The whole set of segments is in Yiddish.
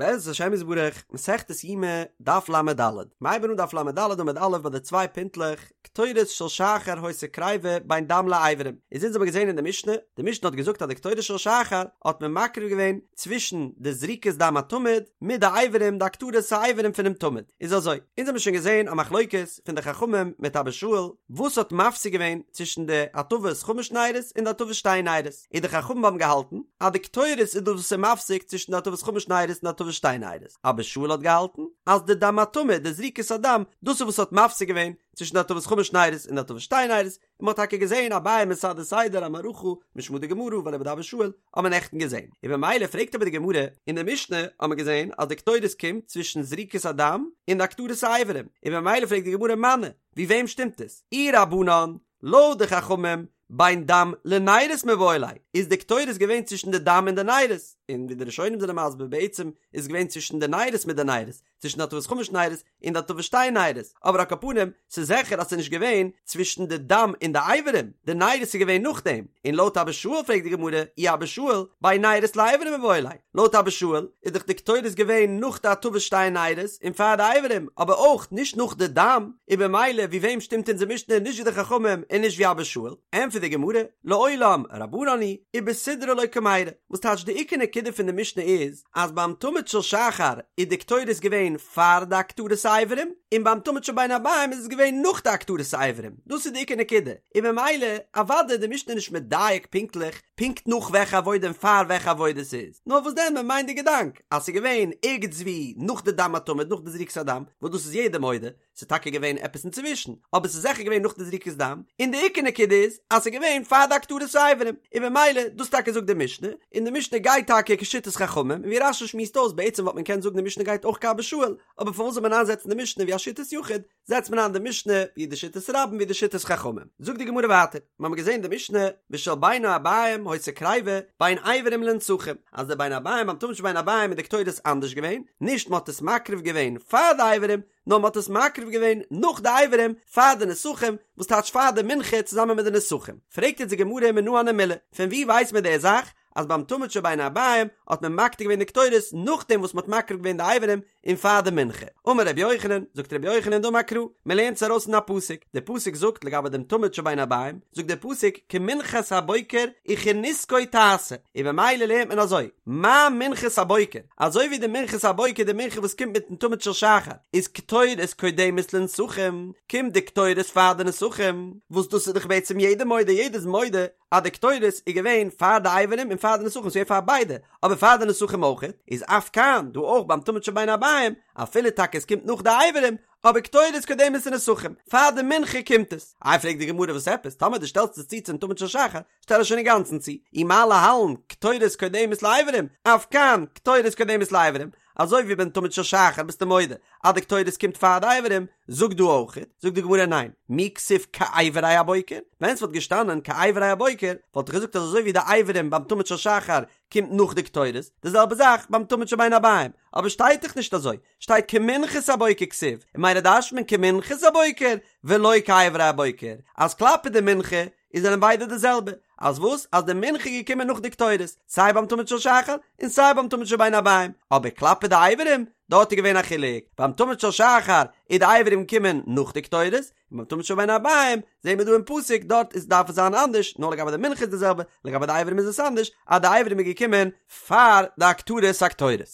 בעזרת השם יתברך, מסכת יומא, דף לד. מ'הייבן אן דף לד עמוד א' ביי די צוויי פינטלעך, קטורת של שחר היתה קריבה בין דם לאיברים. איז אונז האבן געזען אין די משנה, די משנה האט געזאגט אז די קטורת של שחר האט מען מקריב געווען צווישן די זריקת דם התמיד מיט די איברים די הקטרת האיברים פונעם תמיד. איז אזוי, אונז האבן שוין געזען א מחלוקת פון די חכמים מיט אבא שאול, וואס האט מפסיק געווען צווישן די הטבת חמש נרות און די הטבת שתי נרות. און די חכמים האבן געהאלטן אז די קטורת איז דאס וואס איז מפסיק צווישן די הטבת חמש נרות און די הטבת שתי נרות, אבא שאול האט געהאלטן אז די דם התמיד, די זריקת הדם, דאס איז וואס האט מפסיק געווען צווישן די הטבת חמש נרות און די הטבת שתי נרות, און מען האט טאקע געזען אביי מסדר סדר א מערכה משמא דגמרא ואליבא דאבא שאול האט מען נעכטן געזען, און במילא פרעגט אבער די גמרא, אין די משנה האט מען געזען אז די קטורת קומט צווישן זריקת הדם און די הקטרת האיברים, און במילא פרעגט די גמרא מני, ווי וועם שטימט עס? אי רבנן, לויט די חכמים, בין דם לנרות מיבעי ליה, איז די קטורת געווען צווישן די דם און די נרות, און ווי די ראשונים זענען מסביר בעצם איז געווען צווישן די נרות מיט די נרות, צווישן די הטבת חמש נרות און די הטבת שתי נרות, אבער על כל פנים ס'איז זיכער אז ס'איז נישט געווען צווישן די דם און די אברים, די נרות איז געווען נאכדעם, און לויט אבא שאול פרעגט די גמרא, אי אבא שאול, בין נרות לאברים מיבעי ליה, לויט אבא שאול איז דאך די קטורת געווען נאך די הטבת שתי נרות און פאר די אברים, אבער אויך נישט נאך די דם, און במילא ווי וועם שטימט אונזער משנה נישט ווי די חכמים און נישט ווי אבא שאול? ענטפערט די גמרא, לעולם רבנן היא ובסידרא לא קמיירי, וואס טייטש די עיקר נקודה פון די משנה איז אז ביים תמיד של שחר איז די קטורת געווען פאר די הקטרת האיברים, און ביים תמיד של בין הערביים איז עס געווען נאך די הקטרת האיברים, דאס איז די עיקר נקודה, און במילא אוודאי איז די משנה נישט מדייק פונקטליך פונקט נאך וועלכע עבודה און פאר וועלכע עבודה ס'איז, נאר וואס דען מען מיינט די געדאנק אז ס'איז געווען ערגעץ ווי נאך די דם התמיד נאך די זריקת הדם, וואס דאס איז יעדער מודה, ס'איז טאקע געווען עפעס אינצווישן, אבער ס'איז זיכער געווען נאך די זריקת דם, און די עיקר נקודה איז אז ס'איז געווען פאר די הקטרת האיברים, און במילא דאס טאקע זאגט די משנה, און די משנה גייט טאקע כשיטת חכמים, און ווי רש"י שמועסט אויס בעצם וואלט מען קענען זאגן די משנה גייט אויך כאבא שאול, אבער פארוואס זאל מען איינזעצן די משנה ווי א שיטת יחיד, זעצט מען איין די משנה ווי די שיטת רבים ווי די שיטת חכמים. זאגט די גמרא ווייטער, מיר האבן געזען די משנה ושל בין הערבים היתה קריבה בין אברים לנסכים, אז די בין הערבים ביים תמיד של בין הערבים איז די קטורת אנדערש געווען, נישט מען האט עס מקריב געווען פאר די אברים, נאר מען האט עס מקריב געווען נאך די אברים פאר די נסכים, וואס טייטש פאר די מנחה צוזאמען מיט די נסכים. פרעגט יעצט די גמרא מנא הני מילי, פון וואו ווייסט מען די זאך אז ביים תמיד של בין הערבים האט מען מקטיר געווען די קטורת נאכדעם וואס מען האט מקריב געווען די אברים און פאר די מנחה. אמר רבי יוחנן, זאגט רבי יוחנן דאמר קרא, מען לערנט עס ארויס אין א פסוק, דער פסוק זאגט לגבי דעם תמיד של בין הערבים, זאגט דער פסוק כמנחת הבוקר וכנסכו תעשה, און במילא לערנט מען אזוי, מה מנחת הבוקר, אזוי ווי די מנחת הבוקר די מנחה וואס קומט מיטן תמיד של שחר, איז קטורת קודמת לנסכים, קומט די קטורת פאר די נסכים, וואס דאס איז דאך בעצם יעדער מודה, יעדער איז מודה אז די קטורת איז געווען פאר די אברים און פאר די נסכים, ס'איז געווען פאר ביידע, אבער פאר די נסכים אויך, איז אף כאן, דא אויך ביים תמיד של בין הערבים, אפילו טאקע עס קומט נאך די אברים, אבער קטורת קודמת לנסכים, פאר די מנחה קומט עס. איי פרעגט די גמרא וואס עפעס, טאמער דו שטעלסט עס צו צום תמיד של שחר, שטעל עס שוין אינגאנצן צו, אי מה להלן, קטורת קודמת לאברים, אף כאן, קטורת קודמת לאברים, אזוי ווי ביים תמיד של שחר ביסטו מודה אז די קטורת קומט פאר די אברים, זאג דא אויך, זאגט די גמרא ניין, מי כתיב כאיברי הבוקר, ווען ס'וואלט געשטאנען כאיברי הבוקר, וואלט איך געזאגט אז אזוי ווי די אברים ביים תמיד של שחר קומט נאך די קטורת, די זעלבע זאך ביים תמיד של בין הערבים, אבער שטייט דאך נישט אזוי, שטייט כמנחת הבוקר כתיב, און ממילא דרש'נט מען כמנחת הבוקר ולא כאיברי הבוקר, אז כלפי די מנחה איז זענען ביידע די זעלבע, אז וואס? אז די מנחה איז געקומען נאך די קטורת, סיי ביים תמיד של שחר און סיי ביים תמיד של בין הערבים, אבער כלפי די אברים, דארט איז געווען א חילוק, ביים תמיד של שחר איז די אברים געקומען נאך די קטורת, און ביים תמיד של בין הערבים זעהן מיר דא אין פסוק דארט איז דארף עס זיין אנדערש, נאר לגבי די מנחה איז די זעלבע, לגבי די אברים איז עס אנדערש, אז די אברים איז געקומען פאר די הקטרת הקטורת.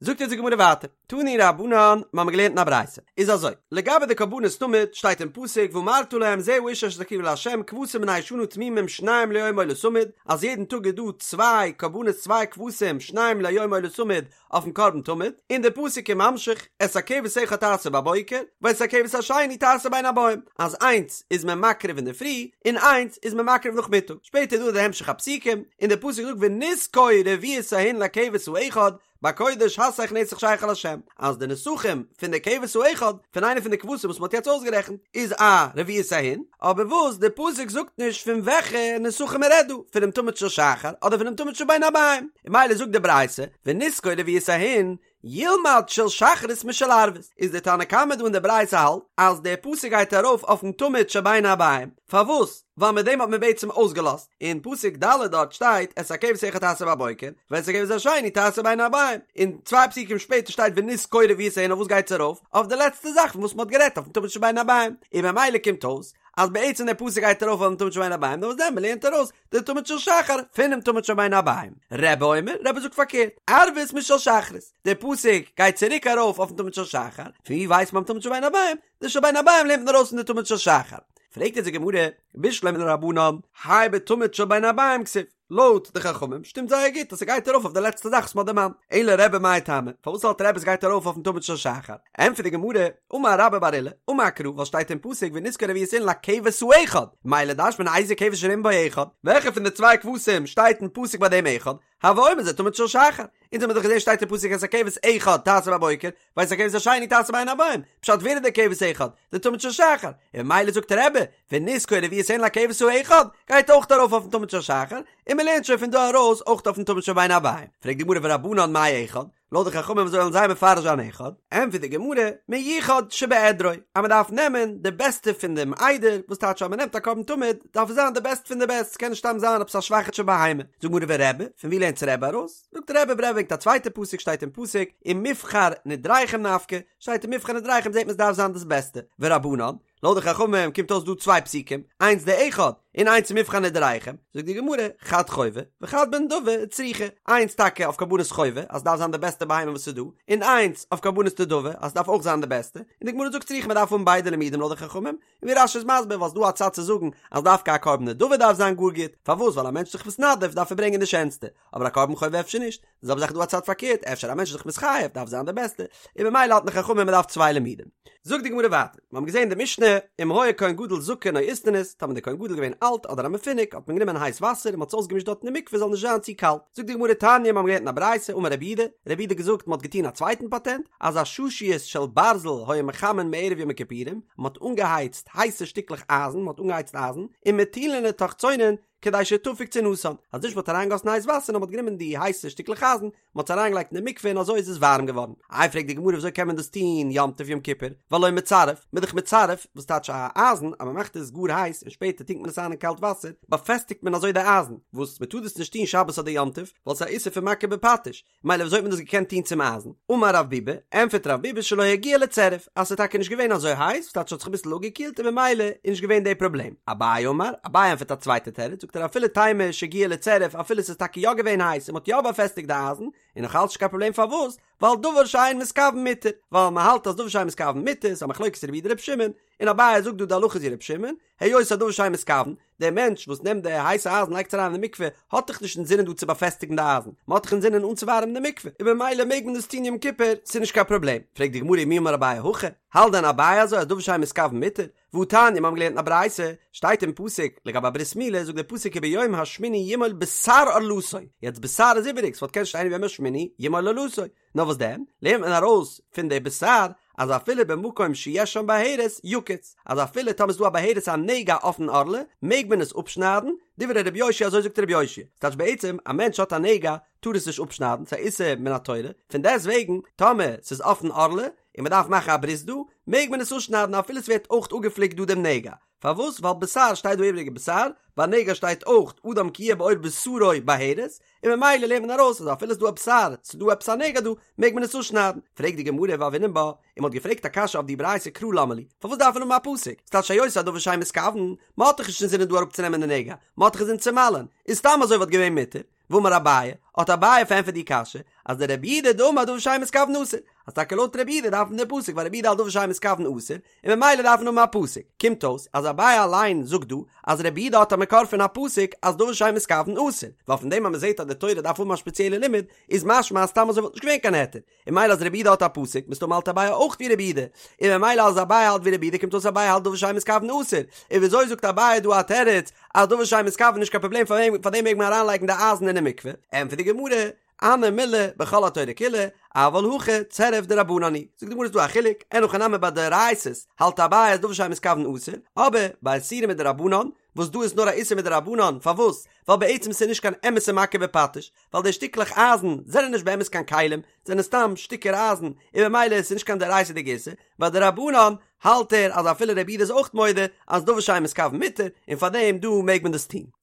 זאגט אונז די גמרא ווייטער, תנו רבנן, מיר האבן געלערנט אין א ברייתא, איז אזוי, לגבי די קרבנות תמיד, שטייט אין פסוק, ואמרת להם זה האיש אשר תקריבו לה' כבשים בני שנה תמימים שניים ליום עולת תמיד, אז יעדן טאג איז דא צוויי קרבנות צוויי כבשים שניים ליום עולת תמיד אויפן קרבן תמיד, און דער פסוק איז ממשיך, את הכבש אחד תעשה בבוקר, ואת הכבש השני תעשה בין הערבים, אז איינס איז מען מקריב אינדערפרי, און איינס איז מען מקריב נאכמיטאג, שפעטער איזדא די המשך הפסוקים, און דער פסוק זאגט ונסכו רביעית ההין לכבש האחד, בקודש הסך נסך שכר לה', אז די נסכים פון די כבש האחד, פון איינע פון די כבשים וואס מ'האט יעצט אויסגערעכנט, איז א רביעית ההין, אבער וואס די פסוק זאגט נישט פון וועלכע נסכים מ'רעדט דא, פונעם תמיד של שחר אדער פונעם תמיד של בין הערבים, און ממילא זאגט די ברייתא, ונסכו רביעית ההין, ילמד של שחרית משל ערבית, איז דער תנא קמא דא אין די ברייתא האלט אז דער פסוק גייט ארויף אויפן תמיד של בין הערביים, פארוואס? ווייל מיט דעם האט מען בעצם אויסגעלאזט, אין פסוק ד' דארט שטייט את הכבש האחד תעשה בבוקר, ואת הכבש השני תעשה בין הערביים, און צוויי פסוקים שפעטער שטייט ונזכור רביעית און אויף וואס גייט עס ארויף? אויף די לעצטע זאך פון וואס מען האט גערעדט אויפן תמיד של בין הערביים, און ממילא קומט אויס אז בעצם דער פסוק גייט ארויף אויפן תמיד של בין הערביים, נאר וואס דען מען לערנט ארויס די תמיד של שחר פונעם תמיד של בין הערביים. רבי אומר, רבי זאגט פארקערט, ערבית משל שחרית, דער פסוק גייט צוריק ארויף אויפן תמיד של שחר, פון ווי ווייסט מען תמיד של בין הערביים? די של בין הערביים לערנט מען ארויס פון די תמיד של שחר. פרעגט יעצט די גמרא, בשלמא לרבנן, האי בתמיד של בין הערביים כתיב, לויט די חכמים שטימט זייער גוט אז ס'גייט ארויף אויף די לעצטע זאך וואס מ'האט דערמאנט, אלא רבי מאי טעמא, פארוואס האלט רבי ס'גייט ארויף אויפן תמיד של שחר? ענטפערט די גמרא, אמר רבה בר עולא, אמר קרא, ווייל שטייט אין פסוק ונזכור רביעית אילן לכבש האחד, ממילא דרש'נט מען איזה כבש שנאמר בו אחד, וועלכע פון די צוויי כבשים שטייט אין פסוק ביי דעם אחד, הוי אומר זה תמיד של שחר, אונז האמיר דאך געזען שטייט אין פסוק את הכבש אחד תעשה בבוקר, ואת הכבש השני תעשה בין הערביים, פשט ווער איז דער כבש אחד? די תמיד של שחר, און ממילא זאגט רבי, ונזכור רביעית אילן לכבש האחד, גייט אויך ארויף אויפן תמיד של שחר, און מען לערנט שוין פון דא ארויס אויך אויפן תמיד של בין הערביים, פרעגט די גמרא ורבנן מאי אחד? לויט די חכמים ווי אזוי וועלן זיי מפרש זיין אחד? ענטפערט די גמרא, מיוחד שבעדרו, אז מען דארף נעמען די בעסטע פון דעם עדר, וואס טייטש אז מען נעמט א קרבן תמיד, דארף עס זיין די בעסט פון די בעסט, ס'קען נישט סתם זיין עפעס א שוואכיטשע בהמה. זאגט די גמרא ורבי, פון ווי לערנט רבי ארויס? זאגט רבי רבי ברענגט א צווייטע פסוק שטייט אין פסוק, ומבחר נדריכם נפקא, שטייט ומבחר נדריכם זעט מען עס דארף זיין דאס בעסטע, ורבנן, לויט די חכמים קומט אויס דא צוויי פסוקים, איינס די אחד און איינס מבחר נדריכם, זאגט די גמרא, חד חובה וחד בנדבה צריכא, איינס טאקע אויף קרבנות חובה אז ס'דארף זיין די בעסטע בהמה וואס איז דא, און איינס אויף קרבנות נדבה אז ס'דארף אויך זיין די בעסטע, און די גמרא זאגט צריכא מ'דארף האבן ביידע לימודים לויט די חכמים, און ווי רש"י איז מסביר ווייל ס'דא א צד צו זאגן אז דווקא א קרבן נדבה דארף זיין גאר גוט, פארוואס ווייל א מענטש איז זיך מתנדב דארף ער ברענגען די שענסטע, אבער א קרבן חובה אפשר נישט, די זעלבע זאך איז דא א צד פארקערט, אפשר א מענטש איז זיך מתחייב דארף זיין די בעסטע, און ממילא האלטן די חכמים מען דארף צוויי לימודים. זאגט די גמרא ווייטער, מיר האבן געזען אין די משנה, אם היה כהן גדול זקן או איסטניס, טאמער די כהן גדול איז געווען אלט אדער א מפונק, האט מען גענומען הייס וואסער און מען האט עס אויסגעמישט דארט אין די מקווה זאל נישט זיין צו קאלט. זאגט די גמרא תניא, מיר האבן געלערנט אין א ברייתא, אמר רבי יהודה, רבי יהודה האט געזאגט מען האט געטון א צווייטן פאטענט, אז עששיות של ברזל היו מחמין מערב יום הכיפורים, מען האט אנגעהייצט הייסע שטיקלעך אייזן, מען האט אנגעהייצט אייזן, ומטילין לתוך צונן, כדי שתפיג צינתן, אז נישט מ'האט אריינגעגאסן הייס וואסער נאר מ'האט גענומען די הייסע שטיקלעך אייזן, מ'האט עס אריינגעלייגט אין די מקווה און אזוי איז עס ווארעם געווארן. איי פרעגט די גמרא וויאזוי קען מען דאס טון יום טוב יום כיפור, והלא מצרף, מ'איז דאך מצרף, וואס טייטש א אייזן אז מ'מאכט עס גאר הייס און שפעטער טונקט מען עס איין אין קאלט וואסער, באפעסטיגט מען אזוי די אייזן, וואס מ'טאר דאס נישט טון שבת אדער יום טוב, ווייל ס'איז א איסור פון מכה בפטיש, מילא וויאזוי האט מען דאס געקענט טון צום אייזן? אמר רב ביבי, ענטפערט רב ביבי שלא הגיע לצירוף, אז ס'איז טאקע נישט געווען אזוי הייס, ס'טייטש ס'האט זיך אביסל אפגעקילט און ממילא איז נישט געווען די פראבלעם. אביי אמר, אביי ענטפערט א צווייטע תירוץ, זאגט ער אפילו תימא שהגיע לצירוף, אפילו ס'איז טאקע יא געווען הייס און מ'האט יא באפעסטיגט די אייזן, איז נאך אלץ נישט קיין פראבלעם פארוואס? ווייל דבר שאין מתכוין מותר, ווייל מ'האלט אז דבר שאין מתכוין מותר, ס'איז א מחלוקת רבי יהודה רבי שמעון, און אביי זאגט דא די הלכה איז ווי רבי שמעון, היות א דבר שאין מתכוין, דער מענטש וואס נעמט די הייסע אייזן לייגט עס אריין אין די מקווה, האט דאך נישט אינזינען דא צו באפעסטיגן די אייזן, מען האט דאך אינזינען אנצואווארעמען די מקווה, און במילא מעג מען דאס טון יום כיפור, ס'איז נישט קיין פראבלעם. פרעגט די גמרא ומי אמר אביי הכי, האלט דען אביי אזוי אז דבר שאין מתכוין מותר? והתניא, מיר האבן געלערנט אין א ברייתא, שטייט אין פסוק, לגבי א ברית מילה, זאגט דער פסוק וביום השמיני ימול בשר ערלתו, יעצט בשר איז איבעריג, ס'וואלט קענען שטיין וביום השמיני ימול ערלתו, נאר וואס דען, לערנט מען ארויס פון די בשר אז אפילו במקום שיש שם בהרת יקוץ, אז אפילו טאמער איז דא א בהרת א נגע אויפן ערלה, מעג מען עס אפשניידן, דברי רבי יאשיה אזוי זאגט רבי יאשיה, ס'טייטש בעצם א מענטש האט א נגע טאר עס נישט אפשניידן, ס'איז א איסור מן התורה, פון דעסט וועגן טאמער ס'איז אויפן ערלה און מ'דארף מאכן א ברית דא, מעג מען עס אפשניידן אפילו ס'ווערט אויך אפגעפליקט דא דעם נגע, פארוואס? ווייל בשר שטייט דא איבריגע בשר, ביי נגע שטייט אויך אדם כי יהיה בעור בשרו בהרת, און ממילא לערנט מען ארויס אז אפילו ס'איז דא א בשר, ס'איז דא עפעס א נגע דא, מעג מען עס אפשניידן. פרעגט די גמרא והוינן בה, און מ'האט געפרעגט א קשיא אויף די ברייתא קרא למה לי, פארוואס דארף מען האבן א פסוק? ס'טייטש היות הדבר שאין מתכוין, מ'האט דאך נישט אינזינען דא אראפצונעמען די נגע, מ'האט דאך אינזין צו מל'ען, איז סתם אזוי וואלט געווען מותר. ואמר אביי, האט אביי פארענטפערט די קשיא, אז דרבי יהודה דאמר דבר שאין מתכוין אסור, אז טאקע לויט רבי יהודה דארף מען די פסוק ווייל רבי יהודה האלט דבר שאין מתכוין אסור, און ממילא דארף מען האבן א פסוק. קומט אויס אז אביי אליין זאגט דא אז רבי יהודה האט א מקור פון א פסוק אז דבר שאין מתכוין אסור, ווייל פון דעם אז מען זעט אז די תורה דארף האבן א ספעציעלע לימוד, איז משמע אז סתם אזוי וואלט נישט געווען קיין היתר, און ממילא אז רבי יהודה האט א פסוק, מסתמא האלט אביי אויך ווי רבי יהודה, און ממילא אז אביי האלט ווי רבי יהודה קומט אויס אביי האלט דבר שאין מתכוין אסור, און וויאזוי זאגט אביי דא א תירוץ אז דבר שאין מתכוין נישט קיין פראבלעם פאר דעם מעג מען אריינלייגן די אייזן אינעם מקווה, ענטפערט די גמרא, הני מילי בכל התורה כולה, אבל הכא צירוף דרבנן הוא, זאגט די גמרא איז דא א חילוק, אין הכי נמי ביי דאורייתא'ס האלט אביי אז דבר שאין מתכוין אסור, אבער ביי איסורים מדרבנן. וואס דא איז נאר א איסור מדרבנן, פארוואס? ווייל בעצם ס'איז נישט קיין אמת'ע מכה בפטיש, ווייל די שטיקלעך אייזן זענען נישט באמת קיין כלים, זענען סתם שטיקער אייזן, און במילא איז נישט קיין דאורייתא'דיגע איסור, ביי דרבנן האלט ער אז אפילו רבי יהודה איז אויך מודה אז דבר שאין מתכוין מותר, און פארדעם דא מעג מען דאס טון.